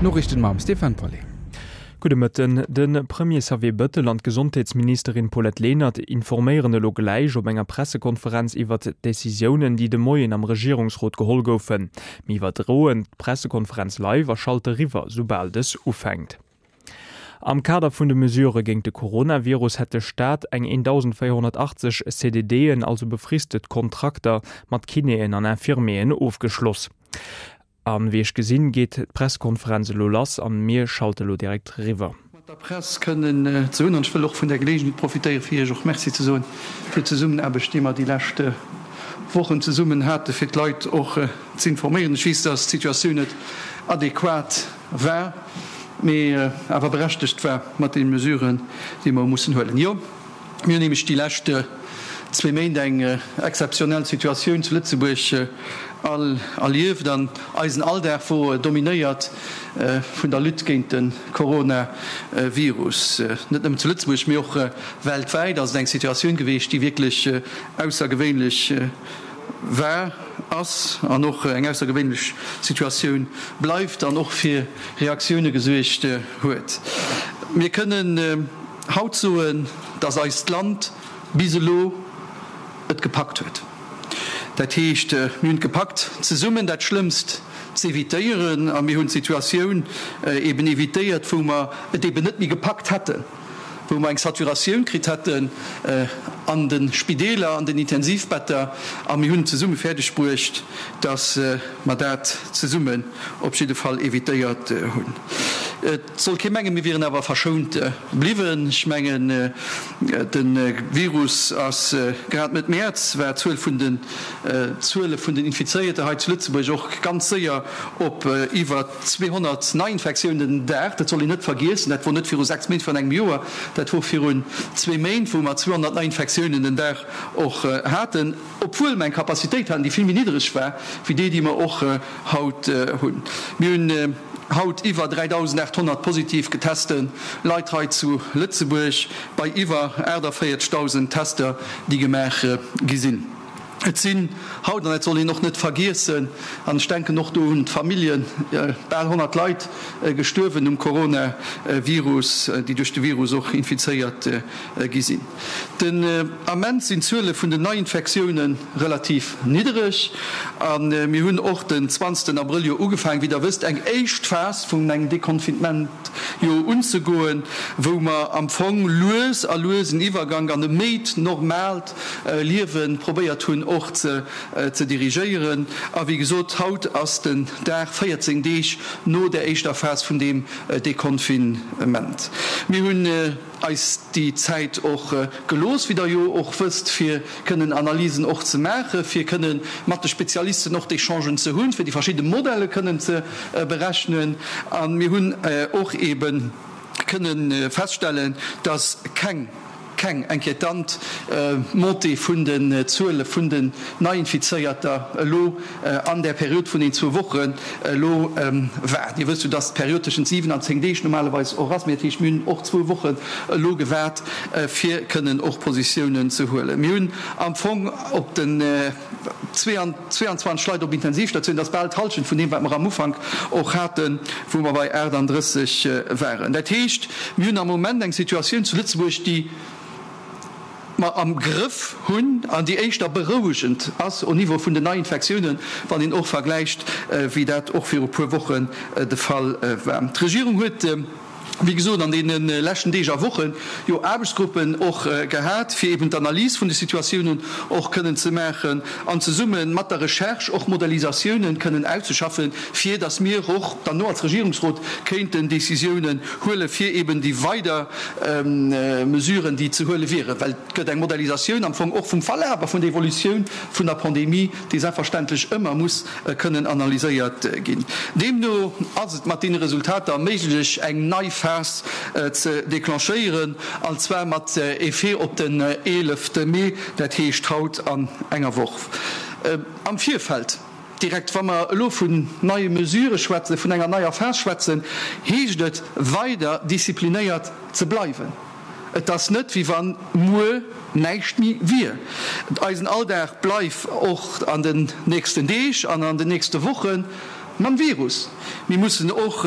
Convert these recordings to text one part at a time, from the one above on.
D'Noriichten mam Stéphane Paulet. Gudde Mëtten. De Premier Xavier Bëttel an d'Gesondheetsministerin Paulette Lenert informéieren elo gläich op enger Pressekonferenz iwwert d'Decisiounen, déi de Moien am Regierungsrot geholl goufen. Mir iwwerdroen d'Pressekonferenz live a schalte riwwer, soubal dës ufänkt. Am Kader vun de Mesurë géint de Coronavirus hätt de Staat eng 1.480 CDDen, also befristet Kontrakter, mat Kinéen an Infirmieren ofgeschloss. A wéi ech gesinn, geet d'Presskonferenz elo lass an mir schalte lo direkt riwwer. Mat der Press kënnen ze hunn. An ech wëll och vun där Geleegenheet profitéieren, fir Iech och Merci ze soen fir d'Zesummenaarbecht, déi mer déi lescht Wochen zesummen haten, fir d'Leit och z'informéieren. Ech weess, dass d'Situatioun net adequat war, mee awer berechtegt war mat deene Mesuren, déi mer hu mussen huelen. Jo, mir hunn nämlech déi lescht zwee Méint eng exzeptionell Situatioun zu Lëtzebuerg all erlieft an eisen Alldag wor dominéiert vun der Lutte géint de Coronavirus. Net nëmmen zu Lëtzebuerg, mee och weltwäit ass et eng Situatioun geweecht, déi wierklech aussergewéinlech war, ass an och eng aussergewéinlech Situatioun bleift an och fir Reaktioune gesuergt huet. Mir kënnen haut soen, dass eist Land bis elo et gepackt huet. Dat heescht, mir hunn et gepackt, zesummen dat Schlëmmst z'evitéieren a mir hunn d'Situatioun eben evitéiert, wou mer et eben net méi gepackt hätten. wou mer eng Saturatioun kritt hätten an de Spideeler, an den Intensivbetter, a mir hunn zesumme fäerdeg bruecht, datt mer dat zesummen op jidde Fall evitéiert hunn. Et soll kee mengen, mir wieren awer verschount bliwwen. Ech mengen, de Virus ass grad Mëtt Mäerz war d'Zuel vun den Zuele vun den Infizéierte hei zu Lëtzebuerg och ganz séier op iwwer 200 Neiinfektiounen den Dag, dat soll een net vergiessen, dat wor net viru 6 Méint, virun engem Joer, dat wor virun zwee Méint, wou mer 200 Neiinfektiounen den Dag och haten, obwuel mer eng Capacitéit haten, déi vill méi niddereg war wéi déi, déi mer och haut hunn. Mir hunn haut iwwer 3.800 positiv geteste Leit hei zu Lëtzebuerg bei iwwer 48.000 Tester, déi gemaach gi sinn. Et sinn haut, an dat soll een och net vergiessen, an ech denken och do un d'Familljen, bal 100 Leit gestuerwen um Coronavirus, déi duerch de Virus och infizéiert gi sinn. Den Ament sinn d'Zuele vun den Neiinfektioune relativ niddereg a mir hunn och den 20 Abrëll jo ugefaangen, wéi Der wësst, eng éischt Phas vun engem Deconfinement jo unzegoen, wou mer am Fong lues a lues en Iwwergank an e méi normaalt Liewe probéiert hunn och ze dirigéieren. A wéi gesot, haut ass den Dag 14 Deeg no där éischter Phas vun deem Deconfinement. Mir hunn eis déi Zäit och gelooss, wéi Der jo och wësst, fir kënnen Analysen och ze maachen, fir kënne mat de Spezialisten och d'Echangen ze hunn, fir déi verschidde Modelle kënnen ze berechnen. A mir hunn och eebe kënne feststellen, dass keng, keng inquiétant Montée vun den Zuele vun den Neiinfizéierter elo an där Period vun den zwou Wochen elo war. Dir wësst jo, dass d'Period tëschent 7 an 10 Deeg normalerweis och ass, mee dat heescht, mir hunn och zwou Wochen elo gewaart, fir kënnen och Positiounen ze huelen. Mir hunn am Fong op den 22 Leit op Intensivstatioun, dat ass bal d'Hallschent vun deem, wat mer am Ufank och haten, wou mer bei 38 waren. Dat heescht, mir hunn am Moment eng Situatioun zu Lëtzebuerg, déi mer am Grëff hunn an déi éischter berouegend ass au Niveau vun den Neiinfektiounen, wann een och vergläicht, wéi dat och viru puer Wochen de Fall war. D'Regierung huet. wéi gesot, an deene leschten Deeg a Woche jo Aarbechtsgruppen och gehat, fir eben d'Analys vun de Situatiounen och kënnen ze maachen an zesumme mat der Recherche och Modellisatiounen kënnen auszeschaffen, fir datt mir och dann no als Regierungsrot kéinten Décisiounen huelen, fir eben déi weider Mesuren, déi ze huele wieren. Well et gëtt eng Modellisatioun am Fong och vum Verlaf a vun der Evolutioun vun der Pandemie, déi selbstverständlech ëmmer muss kënnen analyséiert ginn. Deemno ass et mat deene Resultater méiglech, eng nei Phas ze declenchéieren, an zwar mat Effet op den 11 Mee, dat heescht haut an enger Woch. Am Virfeld direkt, wa mer elo vun neie Mesurë schwätzen, vun enger neier Phas schwätzen, heescht et weider disziplinéiert ze bleiwen. Et ass net, wéi wann muer näischt méi wier. Eisen Alldag bleif och an den nächsten Deeg an an den nächste Woche. mam Virus. Mir mussen och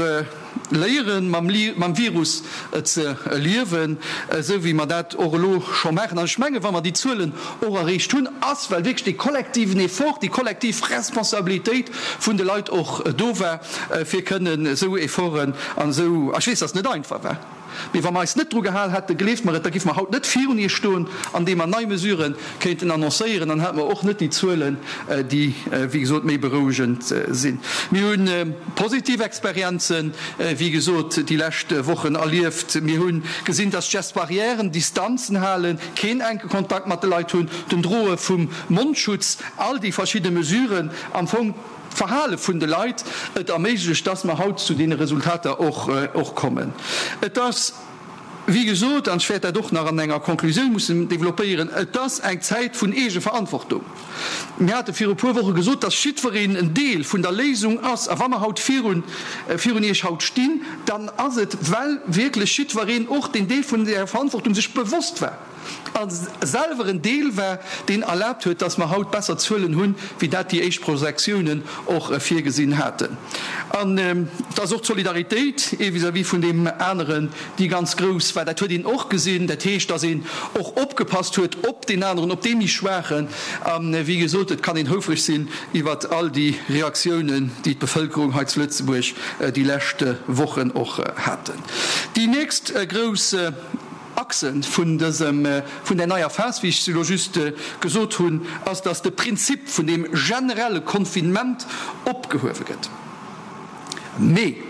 léieren, mam Virus ze liewen, esou wéi mer dat och elo scho maachen. An ech mengen, wa mer déi Zuelen och erreecht hunn, ass, well wierklech dee kollektiven Effort, déi kollektiv Responsabilitéit vun de Leit och do war, fir kënnen esou Efforten an esou, ech weess, dass et net einfach war, Mee wa mer eis net dru gehal hätten, gleeft mer et, da giffe mer haut net virun Iech stoen, andeem mer nei Mesurë kéinten annoncéieren, dann hätte mer och net déi Zuelen, déi, wéi gesot, méi berouegend sinn. Mir hu positiv Experienzen, wéi gesot, déi lescht Wochen erlieft. Mir hu gesinn, dass d'Gestes barrières, Distanzen halen, keen enke Kontakt mat de Leit hunn, den Droe vum Mondschutz, all déi verschidde Mesuren am Fong, d'Verhale vun de Leit et erméiglecht, dass mer haut zu deene Resultater och kommen. Et ass, wéi gesot, an ech wäert dat och nach an enger Konklusioun mussen développéieren, et ass eng Zäit vun Eegeverantwortung. Mir hate viru e puer Woche gesot, dass jiddwereen en Deel vun der Léisung ass. A wa mer haut virun virun Iech haut stinn, dann ass et, well wierklech jiddwereen och deen Deel vun där Verantwortung sech bewosst war. a selwer en Deel war, deen erlaabt huet, dass mer haut besser Zuelen hunn, wéi dat déi éischt Projektiounen och virgesinn haten. An dass och d'Solidaritéit ee vis-à-vis vun deem aneren déi ganz grouss war, dat huet een och gesinn. Dat heescht, dass een och opgepasst huet op deen aneren, op dee méi Schwaachen. A wéi gesot, et kann een houfreg sinn iwwert all déi Reaktiounen, déi d'Bevëlkerung hei zu Lëtzebuerg déi lescht Wochen och haten. Déi nächst grouss. Achse vun dësem, vun där neier Phas, wéi ech se elo just gesot hunn, ass, dass de Prinzip vun deem generelle Confinement opgehuewe gëtt. Mee,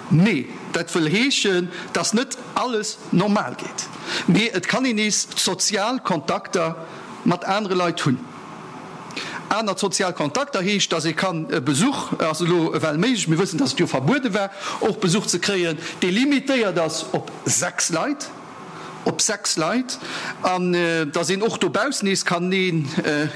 mee dat wëll heeschen, dass net alles normal geet, mee et kann een nees sozial Kontakter mat anere Leit hunn. Aner sozial Kontakter heescht, dass ee kann e Besuch, ass elo ewell méiglech, mir wëssen, dass et jo verbuede war, och Besuch ze kréien, dee limitéiert ass op 6 Leit, op 6 Leit, an dass een och dobaussen nees kann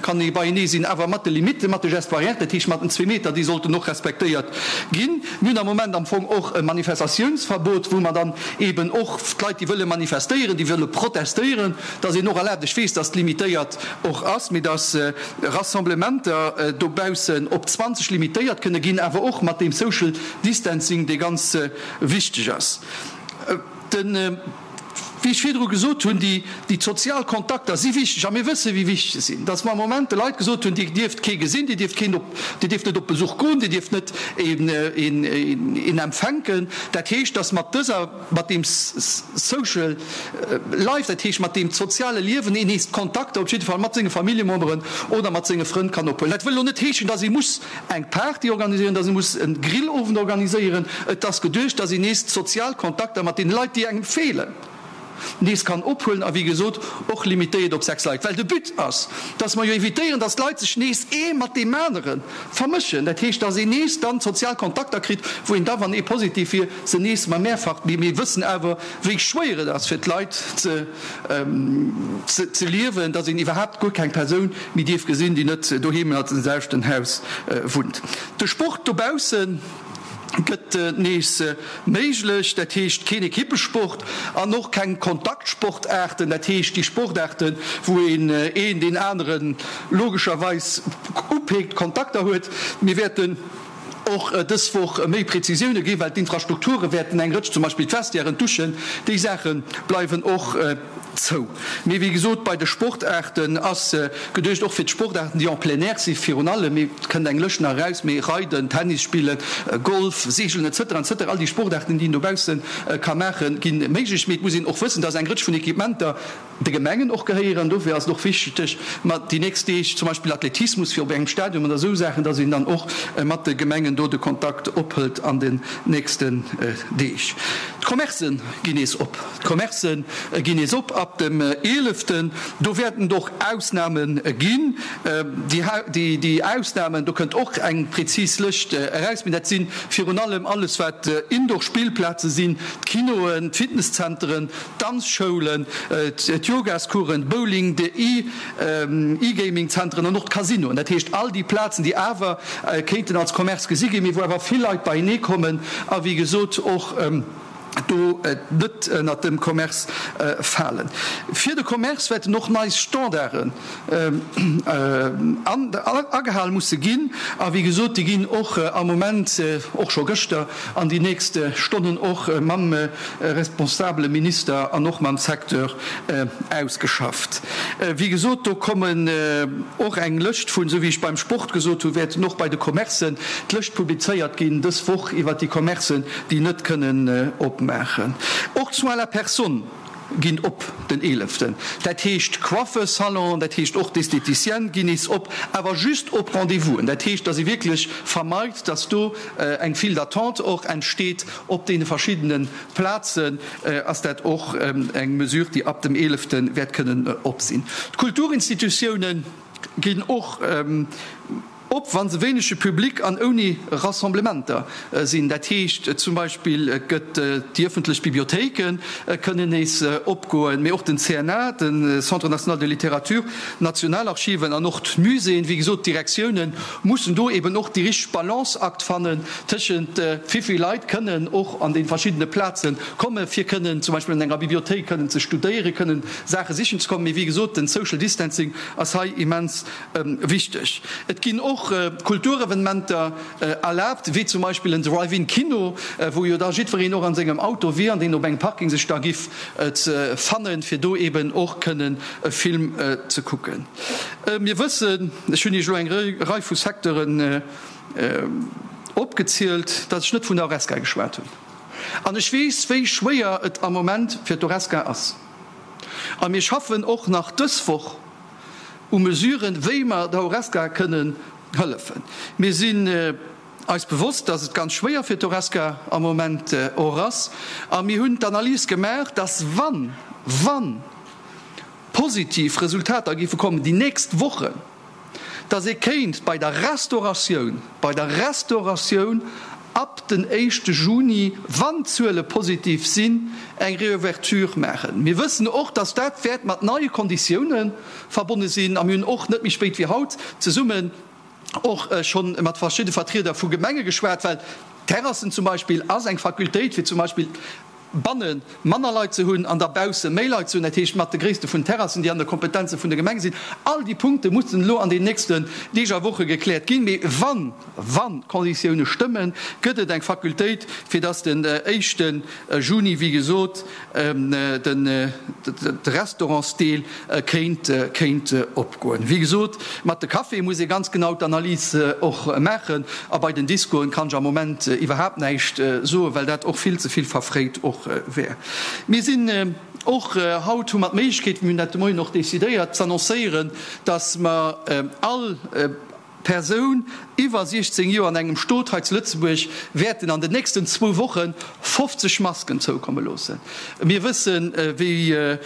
kann ee beienee sinn, awer mat de Limitten, mat de Gestes barrières, dat heescht mat den zwee Meter, déi sollten och respektéiert ginn. Mir hunn am Moment am Fong och e Manifestatiounsverbot, wou mer dann eeben och d'Leit, déi wëlle manifestéieren, déi wëlle protestéieren, dass een och erlaabt, ech weess, dass et limitéiert och ass, mee dass Rassemblementer dobaussen op 20 limitéiert kënne ginn, awer och mat deem Social Distancing, dee ganz wichteg ass. Den, wéi ech virdru gesot hunn, déi, déi sozial Kontakter si wichteg a mir wësse wéi wichteg se sinn, dass mer am Moment de Leit gesot hunn, Dir dierft kee gesinn, Dir dierft keen op, Dir dierft net op Besuch goen, Dir dierft net een, een, een empfänken. Dat heescht, dass mat dëser. mat deem Social Life, dat heescht mat deem soziale Liewen, een nees d'Kontakter op jidde Fall mat senge Familljememberen oder mat senge Frënn kann ophuelen. Dat wëll elo net heeschen, dass ee muss eng Party organiséieren, dass ee muss e Grillowend organiséieren. Et ass geduecht, dass een nees d'sozial Kontakter mat deene Leit, déi engem feelen, nees kann ophuelen a wéi gesot och limitéiert op 6 Leit, well de But ass, dass mer jo evitéieren, dass d'Leit sech nees ee mat deem anere vermëschen. Dat heescht, dass een nees dann sozial Kontakter kritt, wou een da, wann ee positiv wier, se nees ma mehrfach. Mee mir wëssen awer, wéi schwéier et ass fir d'Leit ze ze liewen, dass een iwwerhaapt guer keng Persoun méi dierf gesinn, déi net doheem an dem selwechten Haus wunnt. De Sport dobaussen gëtt nees méiglech, dat heescht keen Ekippesport an och keng Kontaktsportaarten, dat heescht déi Sportaarten, wou een een deen anere logescherweis upeekt, Kontakter huet. Mir wäerten och dës Woch méi Prezisioune ginn, well d'Infrastrukture wäerten eng Rëtsch, zum Beispill d'Vestiairen, d'Duschen, déi Saache bleiwen och zou. Mee wéi gesot, bei de Sportaarten ass geduecht, och fir d'Sportaarten, déi en plein air si virun allem, mee et kënnt eng Lëscht nach eraus, mee Reiden, Tennis spillen, Golf, Seegelen et cetera, et cetera, all déi Sportaarten, déi een dobausse ka maachen, gi méiglech. Mee et muss een och wëssen, dass eng Rëtsch vun Equipementer, de Gemengen och gehéieren. Dofir ass et och wichteg, mat déi nächst Deeg zum Beispill Athletismus fir op engem Stadion oder esou Saachen, dass een dann och mat de Gemengen do de Kontakt ophëlt an den nächsten Deeg. D'Commercë ginn nees op. D'Commercë ginn nees op ab dem eeleften. Do wäerten et och Ausname ginn. Déi Ausnamen, do kënnt och eng prezis Lëscht eraus, mee dat si virun allem alles wat Indoor-Spillplaze sinn, d'Kinoen, d'Fitnesszenteren, D'Danzschoulen, d'Yogascoursen, Bowling, de E-Gaming-Zenteren an och d'Casinoen, dat heescht all déi Plazen, déi awer kéinten als Commerce gesi ginn, mee wou awer vill Leit beienee kommen a wéi gesot och. Do net ënnert dem Commerce falen. Fir de Commerce wäerten och nei Standarden agehal musse ginn. A wéi gesot, déi ginn och am Moment, och scho gëschter, an déi nächst Stonnen och mam responsabele Minister an och mam Secteur ausgeschafft. Wéi gesot, do kommen och eng Lëscht vun, esou wéi ech beim Sport gesot hunn, wäerten och bei de Commercen d'Lëscht publizéiert ginn dës Woch iwwert déi Commercen, déi net kënnen opmaachen. Och d'Soins à la personne ginn op den eeleften. Dat heescht Coiffeursalon, dat heescht och d'Esthéticienne ginn nees op, awer just op Rendez-vousen. Dat heescht, datt ee wierklech vermeit, datt do eng File d'attente och entsteet op deene verschiddene Plazen. Ass dat och eng Mesure, déi ab dem eelefte wäert kënnen op sinn. D'Kulturinstitutiounen ginn och op, wa se wéinege Public an ouni Rassemblementer sinn. Dat heescht zum Beispill, et gëtt déi ëffentlech Bibliothéike kënnen nees opgoen, mee och den CNA, de Centre national de littérature, d'Nationalarchiven an och d'Muséeën. Wéi gesot, d'Direktioune mussen do eben och déi richteg Balanceakt fannen tëschent wéi vill Leit kënnen och an de verschiddene Plaze komme fir kënnen zum Beispill an enger Bibliothéik kënnen ze studéieren, kënnen Saache sichen ze kommen. Mee wéi gesot, den Social Distancing ass hei immens Wichteg, Et ginn och Kulturevenementer erlaabt, wéi zum Beispill en Drive-in-Kino, wou jo da jiddwereen och an sengem Auto wier an deen op engem Parking sech da giff fannen, fir do eben och kënnen e Film ze kucken. Mir wëssen, ech hunn Iech elo eng Rei vu Secteuren opgezielt, datt ech net vun der Horesca geschwat hunn. An ech weess, wéi schwéier et am Moment fir d'Horesca ass. A mir schaffen och nach dës Woch u Mesuren, wéi mer der Horesca kënnen hëllefen. Mir sinn eis bewosst, dass et ganz schwéier fir d'Horesca am Moment och ass. A mir hunn d'Analys gemaach, dass wann, wann positiv Resultater géife kommen déi nächst Wochen, dass ee kéint bei der Restauratioun, bei der Restauratioun ab den éischte Juni, wann d'Zuele positiv sinn, eng Reouverture maachen. Mir wëssen och, dass dat wäert mat neie Konditioune verbonne sinn a mir hunn och net méi spéit wéi haut zesummen och scho mat verschidde Vertrieder vu Gemenge geschwat, well Terrassen zum Beispill ass eng Fakultéit fir zum Beispill banne manner Leit ze hunn an da bausse méi Leit ze hunn, dat heescht mat de Gréisste vun Terrassen, déi an de Kompetenze vun de Gemenge sinn. All déi Punkte mussen elo an den nächsten Deeg a Woche gekläert ginn. Mee wann, wann d'Konditioune stëmmen, gëtt et eng Fakultéit, fir datt den éischte Juni, wéi gesot, de Restaurantsdeel kéint, kéint opgoen. Wéi gesot, mat de Caféë muss ee ganz genau d'Analys och maachen. A bei den Discoen kann ech am Moment iwwerhaapt näischt soen, well dat och vill ze vill verfréit och wär. Mir sinn och haut, hu mer d'Méiglechkeet, mir hunn dat de Moien och decidéiert, z'annoncéieren, dass mer all Persoun iwwer 16 Joer an engem Stot hei zu Lëtzebuerg wäerten an den nächsten zwou Woche 50 Masken zoukomme loossen. Mir wëssen, wéi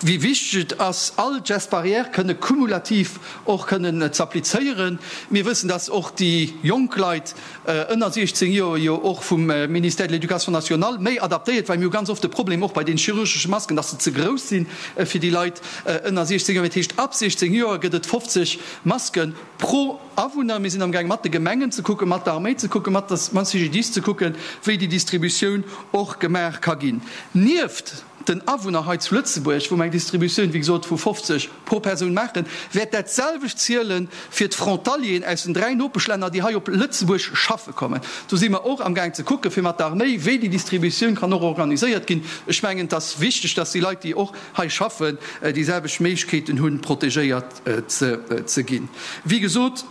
wéi wichteg et ass, all d'Gestes barrières kënne cumulativ och kënnen z'applizéieren. Mir wëssen, dass och déi jonk Leit ënner 16 Joer jo och vum Ministère de l'Éducation nationale méi adaptéiert, well mir hu ganz oft de Problem och bei den chirurgesche Masken, dass se ze grouss si fir déi Leit ënner 16 Joer. Dat heescht, ab 16 Joer gëtt et 50 Maske pro Awunner. Mir sinn amgaang mat de Gemengen ze kucken, mat der Arméi ze kucken, mat der mam CGDIS ze kucken, wéi déi Distributioun och gemaach ka ginn. Nieft den Awunner hei zu Lëtzebuerg, wou mer eng Distributioun, wéi gesot, vu 50 pro Persoun maachen, wäert dat selwecht ziele fir d'Frontalieren aus den 3 Nopeschlänner, déi hei op Lëtzebuerg schaffe kommen. Do si mer och amgaang ze kucken, fir mat der Arméi, wéi déi Distributioun kann och organiséiert ginn. Ech mengen, et ass wichteg, dass déi Leit, déi och hei schaffen, déi selwecht Méiglechkeeten hunn, protegéiert ze ginn. Wéi gesot,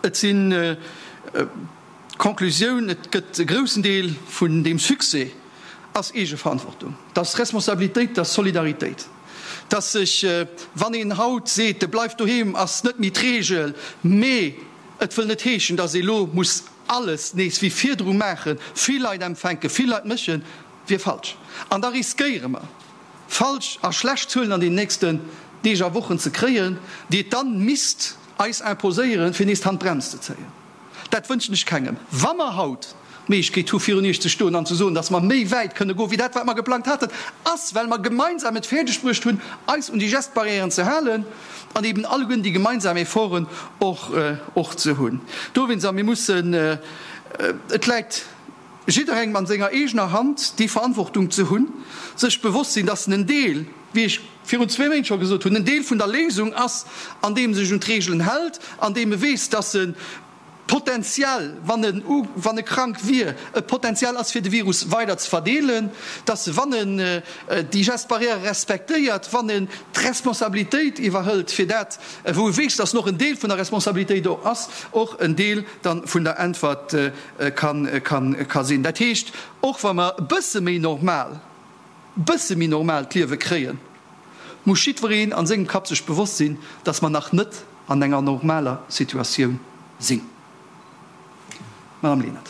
et sinn. D'Conclusioun, Et gëtt e groussen Deel vun deem Succès ass Eegeverantwortung, dat ass Responsabilitéit, dat ass Solidaritéit, dass sech, wann een haut seet, de bleif doheem ass net méi d'Reegel, mee et wëll net heeschen, dass ee lo muss alles nees wéi virdru maachen, vill Leit empfänken, vill Leit mëschen, wier falsch. An da riskéiere mer, falsch a schlecht Zuelen an den nächsten Deeg a Wochen ze kréien, déi et dann misst eis imposéieren, fir nees d'Handbrems ze zéien. Dat wënschen ech kengem. Wa mer haut d'Méiglechkeet hu virun Iech ze stoen an ze soen, dass mer méi wäit kënne goen, wéi dat, wat mer geplangt haten, ass, well mer gemeinsam et fäerdegbruecht hunn, eis un déi Gestbarrièren ze halen an eben alleguerten déi gemeinsam Efforten och, och ze hunn. Dowéinst, a mir mussen, et läit. jidderengem an senger eegener Hand déi Verantwortung ze hunn, sech bewosst sinn, dass en en Deel, wéi ech virun zwee Méint scho gesot hunn, en Deel vun der Léisung ass, andeem e sech un d'Reegelen hält, andeem e weess, dass e potenziell, wann en wann e krank wier, e Potenzial ass fir de Virus weider ze verdeelen, dass e, wann en déi Gestes barrières respektéiert, wann en d'Responsabilitéit iwwerhëlt fir dat, wou e weess, dass en och en Deel vun der Responsabilitéit och ass, och en Deel dann vun der Äntwert ka sinn. Dat heescht, och wa mer e bësse méi normal, e bësse méi normal d'Liewe kréien, muss jiddwereen a sengem Kapp sech bewosst sinn, dass mer nach net an enger normaler Situatioun sinn. Madame Lenert.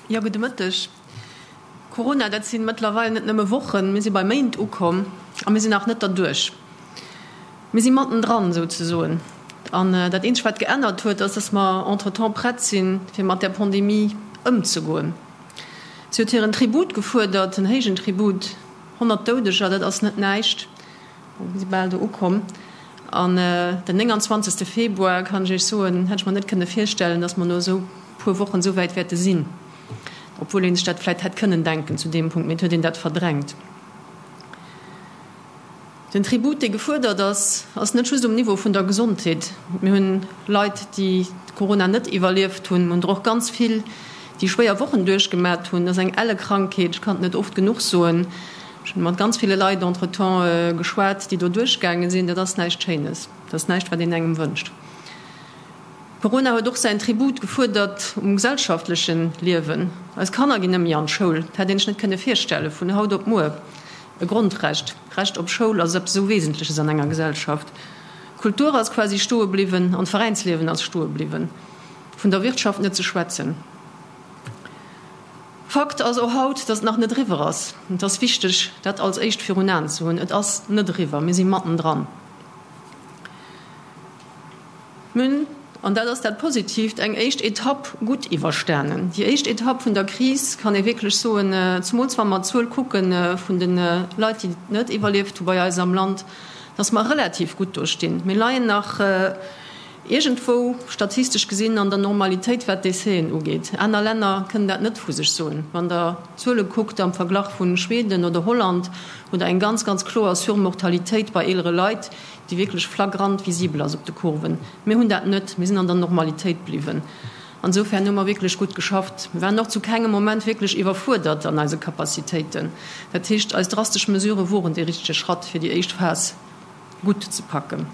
Jo, gudde Mëtteg. Corona, dat si mëttlerweil net nëmme Wochen, mir si bei Méint ukomm a mir sinn nach net derduerch. Mir si mattendran souzesoen. An dat eenzegt, wat geännert huet, ass, dass mer entretemps prett sinn, fir mat där Pandemie ëmzegoen. Si huet hiren Tribut gefuerdert, en héijen Tribut, 100 Doudeger, dat ass net näischt. Mir si bal do ukomm. An den 29. Februar, kann ech Iech soen, hätt ech mer net kënne virstellen, dass mer no esou puer Wochen esou wäit wäerte sinn, obwuel ee sech dat vläicht hätt kënnen denken zu deem Punkt, mee et huet een dat verdrängt. Den Tribut, dee gefuerdert ass, ass net just um Niveau vun der Gesondheet. Mir hunn Leit, déi Corona net iwwerlieft hunn. Mir hunn der och ganz vill, déi schwéier Wochen duerchgemat hunn. Dat ass eng elle Krankheet, ech kann et net oft genuch soen. Ech hunn mat ganz ville Leit entretemps geschwat, déi do duerchgaange sinn. Dat ass näischt Schéines. Dat ass näischt, wat een engem wënscht. Corona huet och säin Tribut gefuerdert um gesellschaftleche Liewen. Eis Kanner ginn net méi an d'Schoul. Dat hätt een sech net kënne virstelle vun haut op muer. E Grondrecht, d'Recht op Schoul ass eppes esou Wesentleches an enger Gesellschaft. D'Kultur ass quasi stoe bliwwen an d'Veräinsliewen ass stoe bliwwen. Vun der Wirtschaft net ze schwätzen. Fakt ass och haut, dass et nach net eriwwer ass. Et ass wichteg, dat als éischt virun Aen ze hunn. Et ass net eriwwer. Mir si mattendran. Mir hunn, an dat ass dat Positiivt, eng éischt Etapp gutt iwwerstanen. Déi éischt Etapp vun der Kris, kann ee wierklech soen, zemools wa mer d'Zuel kucke vun de Leit, déi et net iwwerlieft hu bei eis am Land, dass mer relativ gutt do stinn. Mir leien nach Iergendwou, statistesch gesinn, an der Normalitéit, wat d'Décèsen ugeet. Aner Länner kënnen dat net vu sech soen. Wann Der d'Zuele kuckt am Verglach vu Schweden oder Holland, hutt Der eng ganz, ganz kloer Surmortalitéit bei eelere Leit, déi wierklech flagrant visibel ass op de Kurven. Mir hunn dat net. Mir sinn an der Normalitéit bliwwen. Ansoufern hu mer wierklech gutt geschafft. Mir waren och zu kengem Moment wierklech iwwerfuerdert an eise Capacitéiten. Dat heescht, eis drastesch Mesurë woren dee richtege Schratt, fir déi éischt Phas gutt ze packen.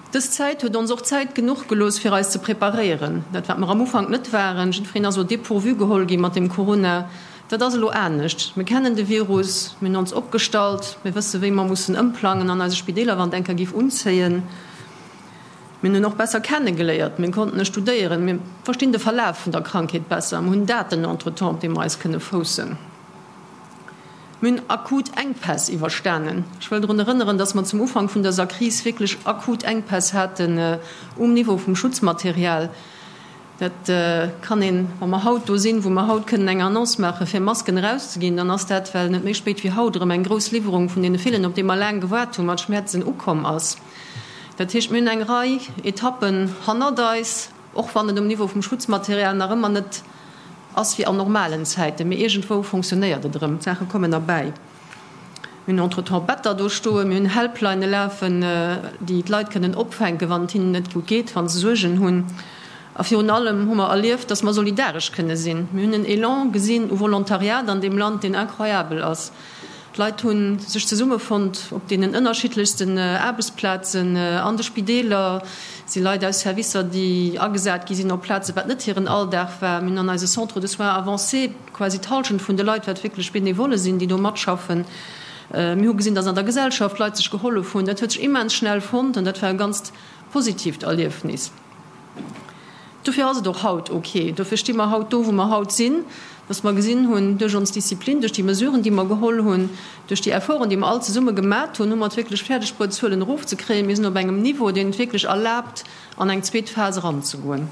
Dës Zäit huet ons och Zäit genuch gelooss, fir eis ze preparéieren. Dat, wat mer am Ufank net waren, jiddwereen ass au dépourvu geholl gi mat dem Corona, dat ass elo anescht. Mir kennen de Virus, mir hunn ons opgestallt, mir wësse wéi mer mussen ëmplangen an eise Spideeler, wann et eng Kéier géif unzéien. Mir hunn en och besser kennegeléiert, mir konnten e studéieren, mir verstinn de Verlaf vun der Krankheet besser, mir hunn Daten entretemps, op déi mer eis kënne foussen. Mir hunn akut Enkpäss iwwerstanen. Ech wëll drun erënneren, dass mer zum Ufank vun dëser Kris wierklech akut Enkpäss haten um Niveau vum Schutzmaterial. Dat kann een, wa mer haut do sinn, wou mer haut kënnen eng Annonce maachen, fir Masken erauszeginn, dann ass dat, well net méi spéit wéi haut erëm eng grouss Liwwerung vun deene villen, op déi mer laang gewaart hunn, mat Schmäerzen ukomm ass. Dat heescht, mir hunn eng Rei Etappen hannert eis. Och wann et um Niveau vum Schutzmaterial nach ëmmer net ass wéi an normalen Zäiten, mee iergendwou fonctionnéiert et erëm, d'Saache kommen erbäi. Mir hunn entretemps Better do stoen, mir hunn Helplinë lafen, déi d'Leit kënnen opfänken, wann et hinnen net gutt geet, wa se Suergen hunn. A virun allem hu mer erlieft, dass mer solidaresch kënne sinn. Mir hunn en Elan gesinn u Volontariat an deem Land, deen incroyabel ass. D'Leit hu sech zesummefonnt op deenen ënnerschiddlechsten Aarbechtsplazen, an de Spideeler si Leit aus Servicer, déi agesat gi sinn op Plazen, wat net hiren Alldag war. Mir hunn an eise Centres de soins avancés quasi d'Hallschent vun de Leit, wat wierklech Benevole sinn, déi do matschaffen. Mir hu gesinn, datt an der Gesellschaft Leit sech gehollef hunn. Dat huet sech immens schnell fonnt an dat war e ganzt positiivt Erliefnis. Dofir ass et och haut ok, dofir sti mer haut do, wou mer haut sinn, dass mer gesinn hunn, duerch ons Disziplin, duerch déi Mesuren, déi mer geholl hunn, duerch déi Efforten, déi mer all zesumme gemat hunn, hu mer et wierklech fäerdeg bruet, d'Zuelen erofzekréien. Mir sinn op engem Niveau, deen et wierklech erlaabt, an eng zweet Phas eranzegoen.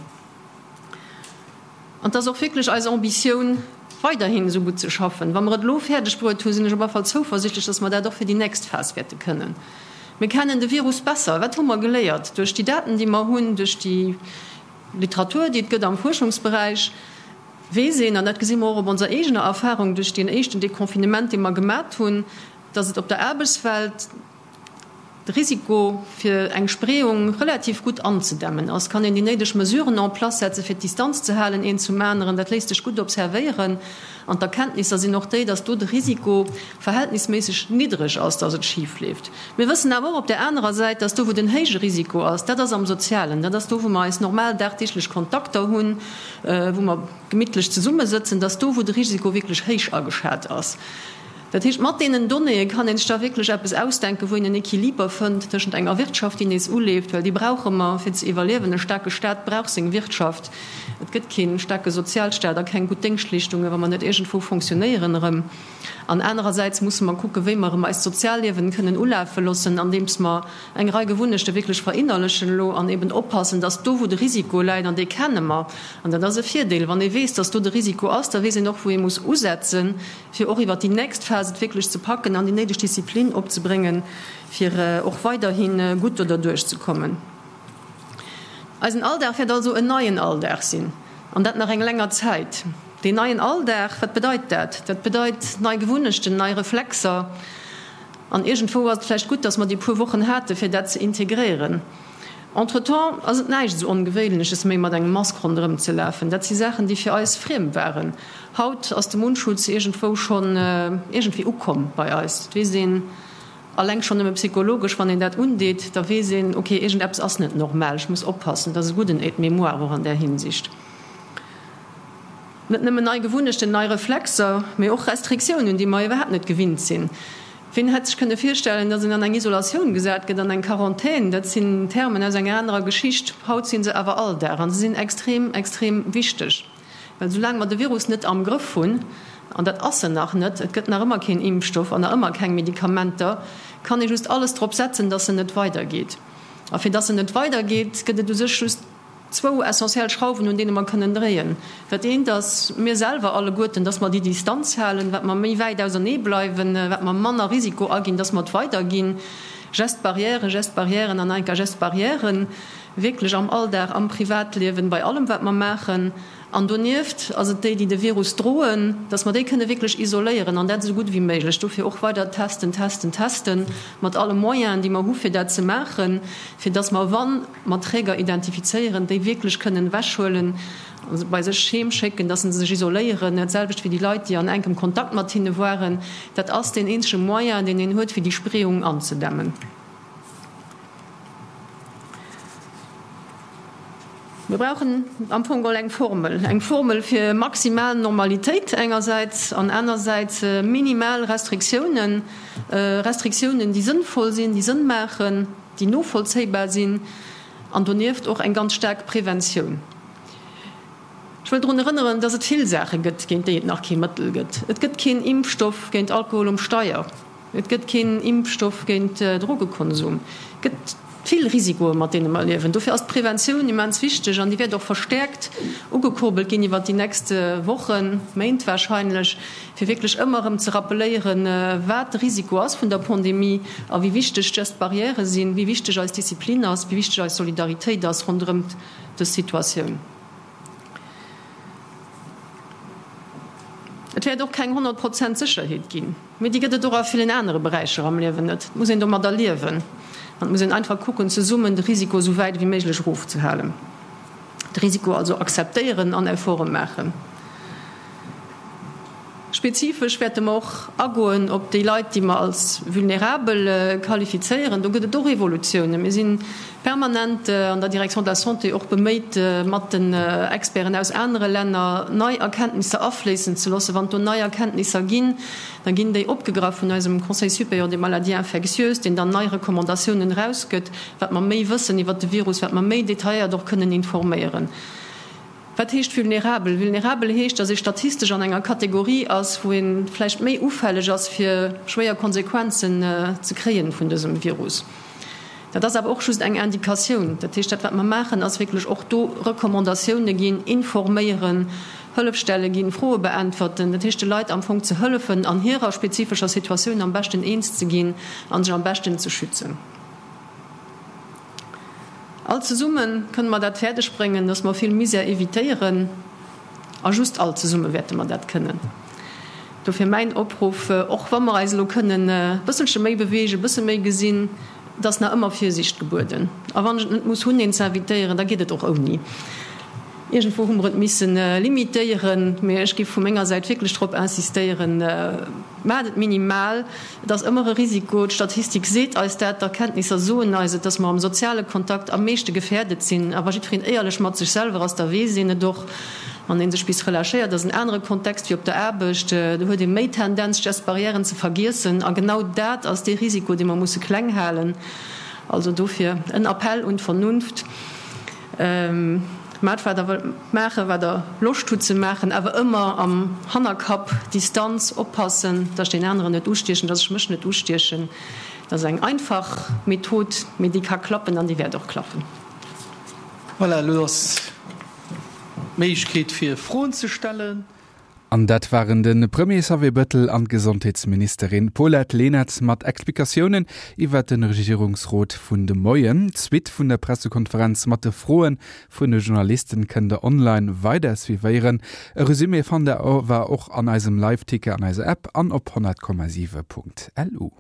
An et ass och wierklech eis Ambitioun, weiderhin esou gutt ze schaffen. Wa mer et elo fäerdeg bruet hunn, sinn ech op alle Fall zouversichtlech, dass mer dat och fir déi nächst Phas wäerte kënnen. Mir kennen de Virus besser. Wat hu mer geléiert duerch déi Daten, déi mer hunn, duerch déi Literatur, déi et gëtt am Fuerschungsberäich? Weess een, an dat gesi mer och op onser eegener Erfahrung duerch deen éischten Deconfinement, dee mer gemat hunn, dass et op der Aarbechtswelt de Risiko fir eng Spreeung relativ gutt anzedämmen ass. Kann een déi néideg Mesuren en place setzen, fir d'Distanz ze halen een zum aneren, dat léisst sech gutt observéieren. An d'Erkenntnisser sinn och déi, dass do de Risiko verhältnisméisseg niddreg ass, dass et schif leeft. Mir wëssen awer och op där anerer Säit, dass do, wou den héije Risiko ass, dat ass am Sozialen, dat ass do, wou mer eis normal dagdeeglech Kontakter hunn, wou mer gemittlech zesummesëtzen, dass do, wou de Risiko wierklech héich ageschat ass. Dat heescht, mat deenen Donnéeë kann ee sech da wierklech eppes ausdenken, wou een en Equiliber fënnt tëschent enger Wirtschaft, déi nees uleeft, well déi brauche mer, fir ze iwwerliewen. E staarke Staat brauch seng Wirtschaft. Et gëtt kee staarke Sozialstaat a keng gutt Déngschtleeschtungen, wa mer net iergendwou fonctionnéieren erëm. An anerersäits musse mer kucken, wéi mer erëm eist Sozialliewen kënnen ulafe loossen, andeems mer eng Rei Gewunnechte wierklech verinnerlechen elo an eben oppassen, dass do, wou de Risiko läit, an dee kenne mer, an dat ass e Virdeel, wann ee weess, dass do de Risiko ass, da weess een och, wou ee muss usetzen, fir och iwwert déi nächst Phas et wierklech ze packen an déi néideg Disziplin opzebréngen, fir och weiderhi gutt do derduerch ze kommen. Eisen Alldag wäert also en neien Alldag sinn, an dat nach eng länger Zäit. Deen neien Alldag, wat bedeit dat? Dat bedeit nei Gewunnechten, nei Reflexer. An iergendwou ass et vläicht gutt, dass mer déi puer Wochen hate fir dat ze integréieren. Entretemps ass et näischt esou Ongewéinleches méi mat engem Mask ronderëm ze lafen. Dat si Saachen, déi fir eis friem waren. Haut ass de Mundschutz iergendwou schonn iergendwéi ukomm bei eis. Et weess een alleng schonn nëmme psychologesch, wann een dat undeet, da weess een, ok, iergendeppes ass net normal, ech muss oppassen. Dat ass e gudden Aide-mémoire och an där Hinsicht. Net nëmmen nei Gewunnechten, nei Reflexer, mee och Restriktiounen, déi mer iwwerhaapt net gewinnt sinn. Wien hätt sech kënne virstellen, datt een an eng Isolatioun gesat gëtt, an eng Quarantän? Dat sinn Termen aus enger anerer Geschicht. Haut si se awer Alldag a se sinn extrem, extrem wichteg. Well soulaang mer de Virus net am Grëff hunn, an dat ass en nach net, et gëtt nach ëmmer keen Impfstoff an nach ëmmer keng Medikamenter, kann ee just alles drop setzen, datt en net weidergeet. A fir datt en net weidergeet, gëtt et u sech just Zwou essentiell Schrauwen, un deene mer kënnen dréien. Dat eent ass mir selwer alleguerten, dass mer déi Distanz halen. Wat mer méi wäit ausernee bleiwen, wat mer manner Risiko aginn, dass mer et weiderginn. Gestes barrières, Gestes barrières an nach eng Kéier Gestes barrières, wierklech am Alldag, am Privatliewen, bei allem wat mer maachen. An donieft ass et déi, déi de Virus droen, dass mer déi kënne wierklech isoléieren an dat esou gutt ewéi méiglech. Dofir och weider testen, testen, testen, mat alle Moyenen, déi mer hu fir dat ze maachen, fir dass mer, wann mer Träger identifizéieren, déi wierklech kënnen ewechhuelen a se bei sech heem schécken, dass se sech isoléieren, dat selwecht wéi déi Leit, déi an enkem Kontakt mat hinne waren. Dat ass deen eenzege Moyen, deen een huet, fir déi Spreeung anzedämmen. Mir brauchen am Fong geholl eng Formel, eng Formel fir maximal Normalitéit engersäits an anersäits minimal Restriktiounen, Restriktiounen, déi sënnvoll sinn, déi Sënn maachen, déi novollzéibar sinn an donieft och eng ganz staark Preventioun. Ech wëll drun erënneren, dass et vill Saache gëtt, géint déi et nach kee Mëttel gëtt. Et gëtt keen Impfstoff géint Alkohol um Steier. Et gëtt keen Impfstoff géint Drogekonsum. Et gëtt vill Risikoe mat deene mer liewen. Dofir ass d'Preventioun immens wichteg an déi wäert och verstäerkt ugekurbelt ginn iwwert déi nächst Wochen, Méint warscheinlech, fir wierklech ëmmer erëm ze rappeléieren, wat de Risiko ass vun der Pandemie a wéi wichteg d'Gestes barrières sinn, wéi wichteg eis Disziplin ass, wéi wichteg eis Solidaritéit ass ronderëm dës Situatioun. Et wäert och keng 100 Prozent Sécherheet ginn. Mee déi gëtt et och a villen anere Beräicher am Liewen net. Et muss een domadder liewen an et muss een einfach kucken, zesummen de Risiko esou wäit ewéi méiglech erofzehalen. De Risiko also akzeptéieren an Efforte maachen. Spezifesch wäerte mer och agoen op déi Leit, déi mer als vulnerabel qualifizéieren. Do gëtt et och Evolutiounen. Mir si permanent an der Direction de la Santé och beméit, mat den Experten aus anere Länner nei Erkenntnisser afléissen ze loossen. Wann et do nei Erkenntnisser ginn, da ginn déi opgegraff vun eisem Conseil supérieur des maladies infectieuses, deen dann nei Recommandatiounen erausgëtt, wat mer méi wëssen iwwert de Virus, wat mer méi detailléiert och kënnen informéieren. Wat heescht vulnerabel? Vulnerabel heescht, datt ee statistesch an enger Kategorie ass, wou ee vläicht méi ufälleg ass, fir schwéier Konsequenzen ze kréien vun dësem Virus. Dat ass awer och just eng Indikatioun. Dat heescht, dat wat mer maachen, ass wierklech och do Recommandatioune ginn, informéieren, Hëllefstelle ginn, Froe beäntwerten. Dat heescht, de Leit am Fong ze hëllefen, an hirer spezifescher Situatioun am beschten eens ze ginn a sech am beschten ze schützen. All zesumme kënne mer dat fäerdeg bréngen, dass mer vill Misär evitéieren. A just all zesumme wäerte mer dat kënnen. Dofir mäin Opruff, och wa mer eis elo kënnen e bësselche méi beweegen, e bësse méi gesinn, et ass nach ëmmer Virsiicht gebueden. A wann ech et net muss hunn, een ze invitéieren, da geet et och ouni. Iergendwou hu mer et misse limitéieren, mee ech géif vu menger Säit wierklech drop insistéieren, Maacht et minimal. Et ass ëmmer e Risiko, d'Statistik seet eis dat, d'Erkenntnisser soen eis et, dass mer am soziale Kontakt am meeschte gefährdet sinn. A wa jiddwereen éierlech mat sech selwer ass, da weess een et och. Wann ee sech bis relâchéiert, ass en anere Kontext wéi op der Aarbecht, do huet ee méi Tendenz, d'Gestes barrièren ze vergiessen. A genau dat ass dee Risiko, dee mer musse kleng halen. Also dofir en Appell un d'Vernunft. Maacht wat der wëllt maachen, wat der Loscht hutt ze maachen, awer ëmmer am Hannerkapp, Distanz, oppassen, dass ech deen aneren net ustiechen, dass ech mech net ustiechen. Dat ass eng einfach Method, mee déi ka klappen an déi wäert och klappen. Voilà, elo ass d'Méiglechkeet fir Froen ze stellen. An dat waren de Premier Xavier Bëttel an d'Gesondheetsministerin Paulette Lenert mat Explikatiounen iwwert de Regierungsrot vun de Moien. D'Suite vun der Pressekonferenz mat de Froe vun de Journalisten kënnt der online weider suivéieren. E Resumé fannt der awer och an eisem Liveticker an eiser App an op 100,7.lu.